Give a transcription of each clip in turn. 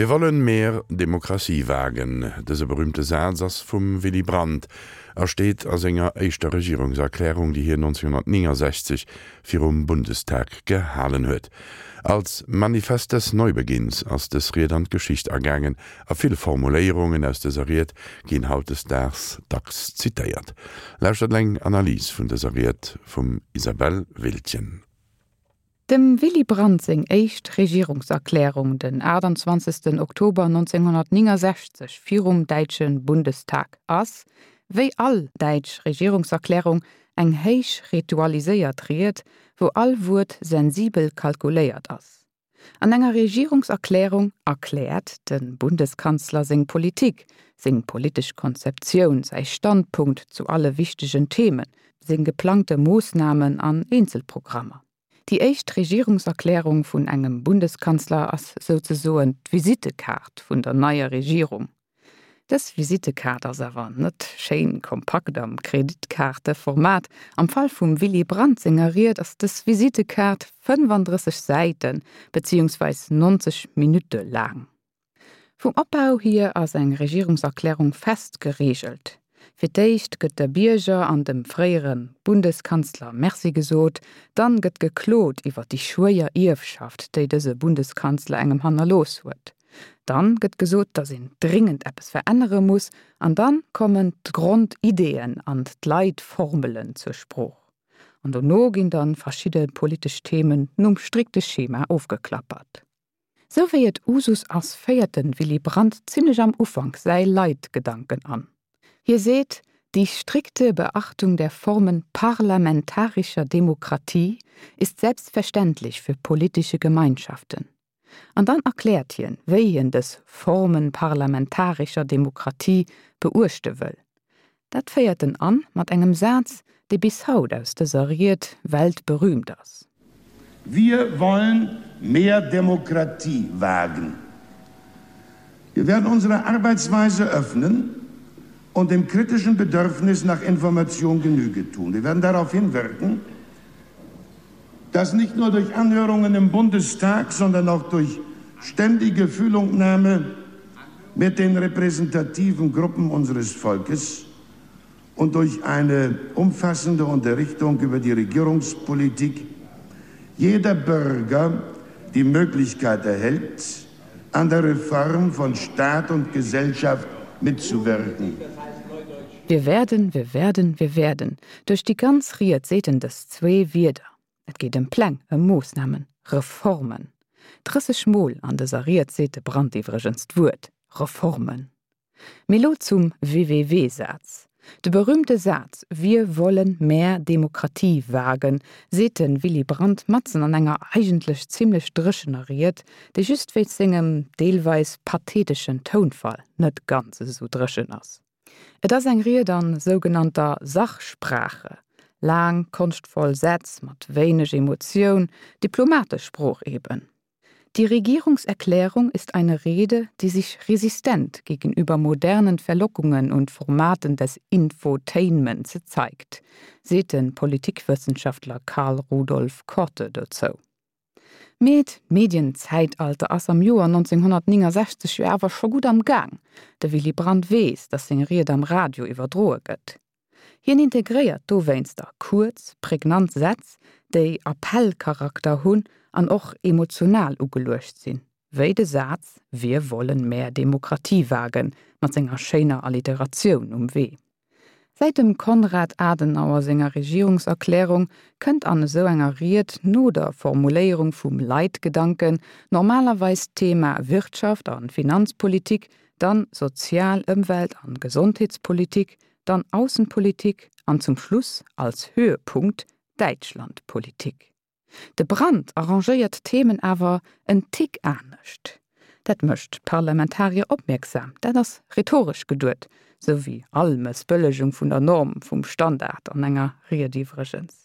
Wir wollen mehr Demokratie wagen. Dëse berühmte Saz ass vum Willy Brandt a steet a senger éischter Regierungserklärung, déi hien 1969 virum Bundestag gehalen huet. Als Manifest des Neubeginns ass dës Ried an d'Geschicht agaangen a vill Formuléierungen aus dëser Ried ginn hautdesdaags dacks zitéiert. Lauschtert eng Analys vun dëser Ried vum Isabelle Wiltgen. Dem Willy Brandt seng éischt Regierungserklärung den 28. Oktober 1969 virum däitsche Bundestag ass, wéi all däitsch Regierungserklärung, eng héich ritualiséiert Ried, wou all Wuert sensibel kalkuléiert ass. An enger Regierungserklärung erkläert de Bundeskanzler seng Politik, seng politesch Konzeptioun, säi Standpunkt zu alle wichtegen Themen, seng geplangte Moossnamen an Eenzelprogrammer. Déi éischt Regierungserklärung vun engem Bundeskanzler ass souzesoen d'Visittekaart vun der neier Regierung. Dës Visittekaart ass awer net schéin kompakt am Kreditkaarteformat. Am Fall vum Willy Brandt senger Ried ass dës Visittekaart 35 Säiten, beziehungsweis 90 Minutte laang. Vum Opbau hier ass eng Regierungserklärung fest gereegelt. Fir d'éischt gëtt de Bierger an dem fréiere Bundeskanzler Merci gesot, dann gëtt geklot iwwer déi schwéier Ierfschaft, déi dëse Bundeskanzler engem hannerlooss huet. Dann gëtt gesot, datt een dringend eppes verännere muss an dann kommen d'Grondideeën an d'Leitformelen zur Sprooch. An dono ginn dann verschidde politesch Themen nom strikte Schema ofgeklappert. Sou wéi et Usus ass, féiert de Willy Brandt zimlech am Ufank säi Leitgedanken an. Hie seet, Die strikte Beachtung der Formen parlamentarischer Demokratie ist selbstverständlich für politische Gemeinschaften. An dann erkläert hien, wéi hien dës Formen parlamentarischer Demokratie beuechte wëll. Dat féiert en an mat engem Saz, dee bis haut aus dëser Ried weltberühmt ass. Wir wollen mehr Demokratie wagen. Wir werden unsere Arbeitsweise öffnen und dem kritischen Bedürfnis nach Information Genüge tun. Wir werden darauf hinwirken, dass nicht nur durch Anhörungen im Bundestag, sondern auch durch ständige Fühlungnahme mit den repräsentativen Gruppen unseres Volkes und durch eine umfassende Unterrichtung über die Regierungspolitik jeder Bürger die Möglichkeit erhält, an der Reform von Staat und Gesellschaft mitzuwirken. Wir werden, wir werden, wir werden. Duerch déi ganz Ried seet en dës zwee Wierder. Et geet ëm Pläng, ëm Moossnamen, Reformen. 30 Mol an dëser Ried seet de Brandt iwwregens d'Wuert Reformen. Mee lo zum WWW-Saz. De berühmte Saz Wir wollen mehr Demokratie wagen seet de Willy Brandt matzen an enger eigentlech zimlech dréchener Ried, déi just wéinst sengem deelweis patheteschen Tounfall net ganz esou dréchen ass. Et ass eng Ried an sougenannter Sachsprache, laang, konschtvoll Sätz mat wéineg Emotioun, diplomatesch Sprooch eben. Die Regierungserklärung ist eine Rede, die sich resistent gegenüber modernen Verlockungen und Formaten des Infotainments zeigt, seet de Politikwëssenschaftler Karl Rudolf Korte dozou. Mee d'Medienzäitalter ass am Joer 1969 jo awer scho gutt am Gaang. De Willy Brandt weess, datt seng Ried am Radio iwwerdroe gëtt. Hien integréiert dowéinster kuerz, prägnant Sätz, déi Appellcharakter hunn an och emotional ugeluecht sinn, wéi de Saz Wir wollen mehr Demokratie wagen mat senger schéiner Alliteratioun um Wee. Säit dem Konrad Adenauer senger Regierungserklärung kënnt an esou enger Ried no der Formuléierung vum Leitgedanken normalerweis d'Thema Wirtschaft a Finanzpolitik, dann Sozial-, Ëmwelt an Gesondheetspolitik, dann Aussenpolitik an zum Schluss als Höhepunkt Däitschlandpolitik. De Brandt arrangéiert d'Themen awer en Tick anescht. Dat mécht d'Parlamentarier opmierksam, dat ass rhetoresch geduet, sou wéi all Mëssbëllegung vun der Norm, vum Standard an enger Ried iwwregens.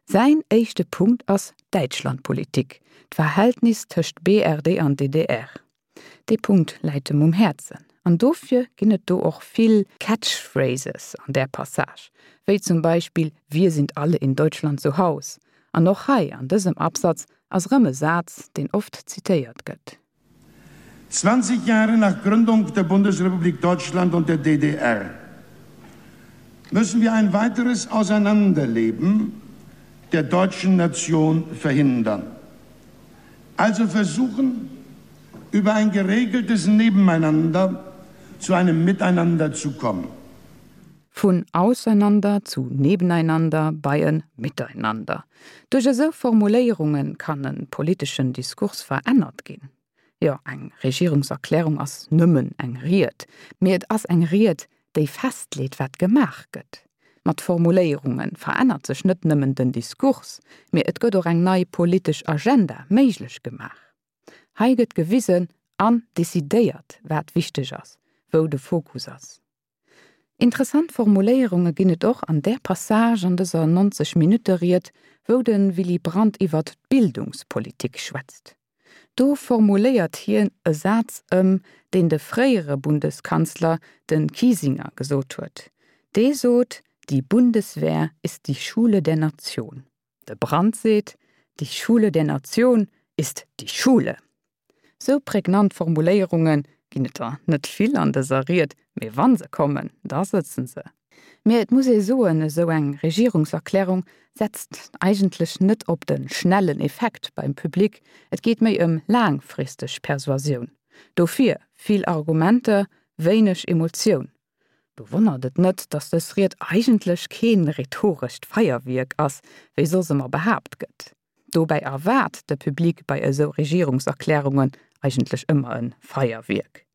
Säin éischte Punkt ass d'Däitschlandpolitik, d'Verhältnis tëscht BRD an DDR. Dee Punkt läit em um Häerzen an dofir ginn et do och vill Catchphrases an där Passage, wéi zum Beispill Wir sind alle in Deutschland zu Haus. An och hei an dësem Absatz ass erëm e Saz, deen oft zitéiert gëtt. 20 Jahre nach Gründung der Bundesrepublik Deutschland und der DDR müssen wir ein weiteres Auseinanderleben der deutschen Nation verhindern. Also versuchen, über ein geregeltes Nebeneinander zu einem Miteinander zu kommen. Vun Auseinander zu Nebeneinander bei en Miteinander. Duerch esou Formuléierunge kann e politeschen Diskurs verännert ginn. Jo, eng Regierungserklärung ass nëmmen eng Ried, mee et ass eng Ried, déi festleet, wat gemaach gëtt. Mat Formuléierunge verännert sech net nëmmen den Diskurs, mee et gëtt och eng nei politesch Agenda méiglech gemaach. Hei gëtt gewisen an decidéiert, wat wichteg ass, wou de Fokus ass. Interessant Formuléierunge ginn et och an där Passage an dëser 90 Minutte-Ried, wou de Willy Brandt iwwert d'Bildungspolitik schwätzt. Do formuléiert hien e Saz ëm, deen de fréiere Bundeskanzler, de Kiesinger, gesot huet. Dee sot, Die Bundeswehr ist die Schule der Nation. De Brandt seet, Die Schule der Nation ist die Schule. Sou prägnant Formuléierunge ginn et der net vill an dëser Ried, mee wa se kommen, da sëtzen se. Mee et muss ee soen, esou eng Regierungserklärung setzt eigentlech net op de schnellen Effekt beim Public, et geet méi ëm laangfristeg Persuasioun. Dofir vill Argumenter, wéineg Emotioun. Do wonnert et net, datt dës Ried eigentlech kee rhetorescht Feierwierk ass, wéi soss ëmmer behaapt gëtt. Dobäi erwaart de Public bei esou Regierungserklärungen eigentlech ëmmer e Feierwierk.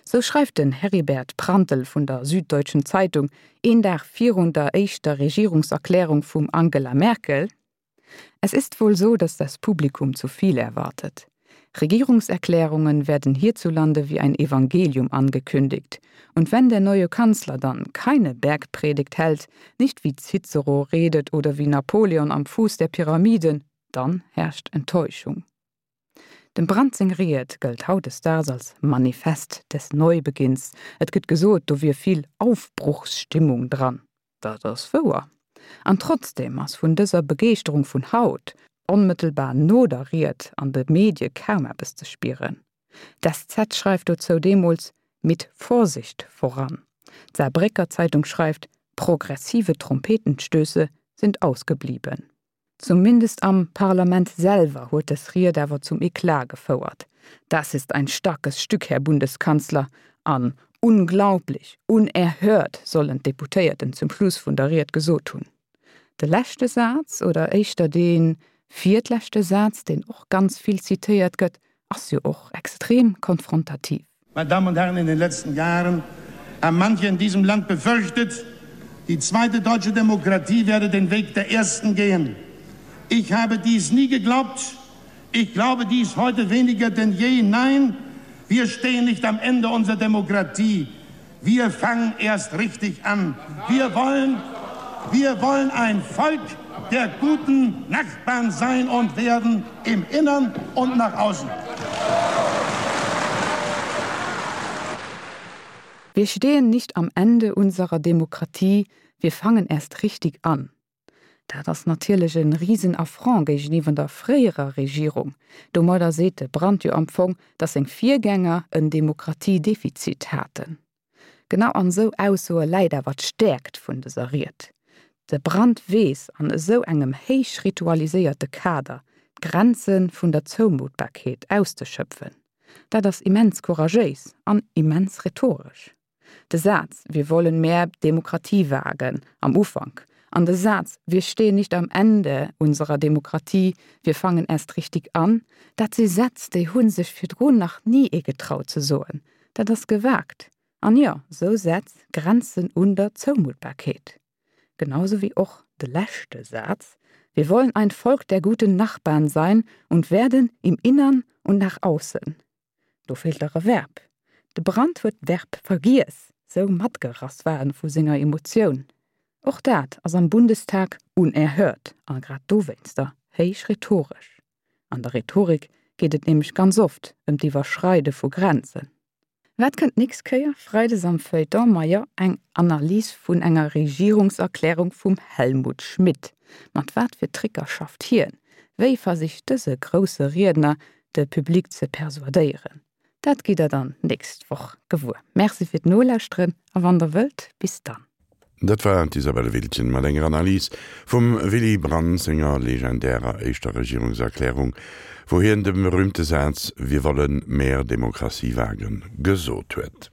Sou schreift den Heribert Prantl vun der Süddeutschen Zeitung een Dag virun der éischter Regierungserklärung vum Angela Merkel, Es ist wohl so, dass das Publikum zu viel erwartet. Regierungserklärungen werden hierzulande wie ein Evangelium angekündigt. Und wenn der neue Kanzler dann keine Bergpredigt hält, nicht wie Cicero redet oder wie Napoleon am Fuß der Pyramiden, dann herrscht Enttäuschung. Dem Brandt seng Ried gëllt hautdesdaags als Manifest des Neubeginns. Et gëtt gesot, do wier vill Aufbruchsstimmung dran. Dat ass wouer. An trotzdeem ass vun dëser Begeeschterung vun haut, onmëttelbar no der Ried, an de Medie kaum eppes ze spieren. D'SZ schreift dozou deemools, Mit Vorsicht voran. D'Saarbrécker Zeitung schreift, Progressive Trompetenstöße sind ausgeblieben. Zumindest am Parlament selwer huet dës Ried awer zum Eclat gefouert. Das ist ein starkes Stück, Herr Bundeskanzler! an Unglaublich! Unerhört! sollen d'Deputéierten zum Schluss vun der Ried gesot hunn. De leschte Saz, oder éischter dee virtleschte Saz, deen och ganz vill zitéiert gëtt, ass jo och extrem konfrontativ. Meine Damen und Herren, in den letzten Jahren haben manche in diesem Land befürchtet, die zweite deutsche Demokratie werde den Weg der ersten gehen. Ich habe dies nie geglaubt. Ich glaube dies heute weniger denn je. Nein, wir stehen nicht am Ende unserer Demokratie. Wir fangen erst richtig an. Wir wollen, wir wollen ein Volk der guten Nachbarn sein und werden im Innern und nach außen. Wir stehen nicht am Ende unserer Demokratie, wir fangen erst richtig an. Dat ass natierlech e Risen-Affront géigeniwwer der fréierer Regierung. Domadder seet de Brandt jo am Fong, datt seng Virgänger en Demokratiedefizit haten. Genau an esou Aussoe läit awer d'Stäerkt vun dëser Ried. De Brandt weess an esou engem héich ritualiséierte Kader d'Grenze vun der Zoumuttbarkeet auszeschöpfen. Dat ass immens couragéis an immens rhetoresch. De Saz Wir wollen mehr Demokratie wagen am Ufank an de Saz Wir stehen nicht am Ende unserer Demokratie, wir fangen erst richtig an, dat si Sätz, déi hu sech virdrun nach ni ee getraut ze soen. Dat ass gewagt. An jo, sou Sätz grenzen un der Zoumuttbarkeet. Genauso wéi och de leschte Saz, Wir wollen ein Volk der guten Nachbarn sein und werden im Innern und nach außen. Do feelt dach e Verb. De Brandt huet d'Verb vergiess, sou matgerass war en vu senger Emotioun. Och dat ass am Bundestag unerhört a grad dowéinster héich rhetoresch. An der Rhetorik geet et nämlech ganz oft ëm d'Iwwerschreide vu Grenzen. Wat kënnt d'nächst Kéier? Freides am Feuilleton, majo, eng Analys vun enger Regierungserklärung vum Helmut Schmidt. Mat wat fir Tricker schafft hien? Wéi versicht dëse grousse Riedner, de Public ze persuadéieren? Dat gitt der dann nächst Woch gewuer. Merci fir d'Nolauschteren a wann der wëllt, bis dann. Dat war d'Isabelle Wiltgen mat enger Analys vum Willy Brandt senger legendärer éischter Regierungserklärung, wou hien de berühmte Saz Wir wollen mehr Demokratie wagen gesot huet.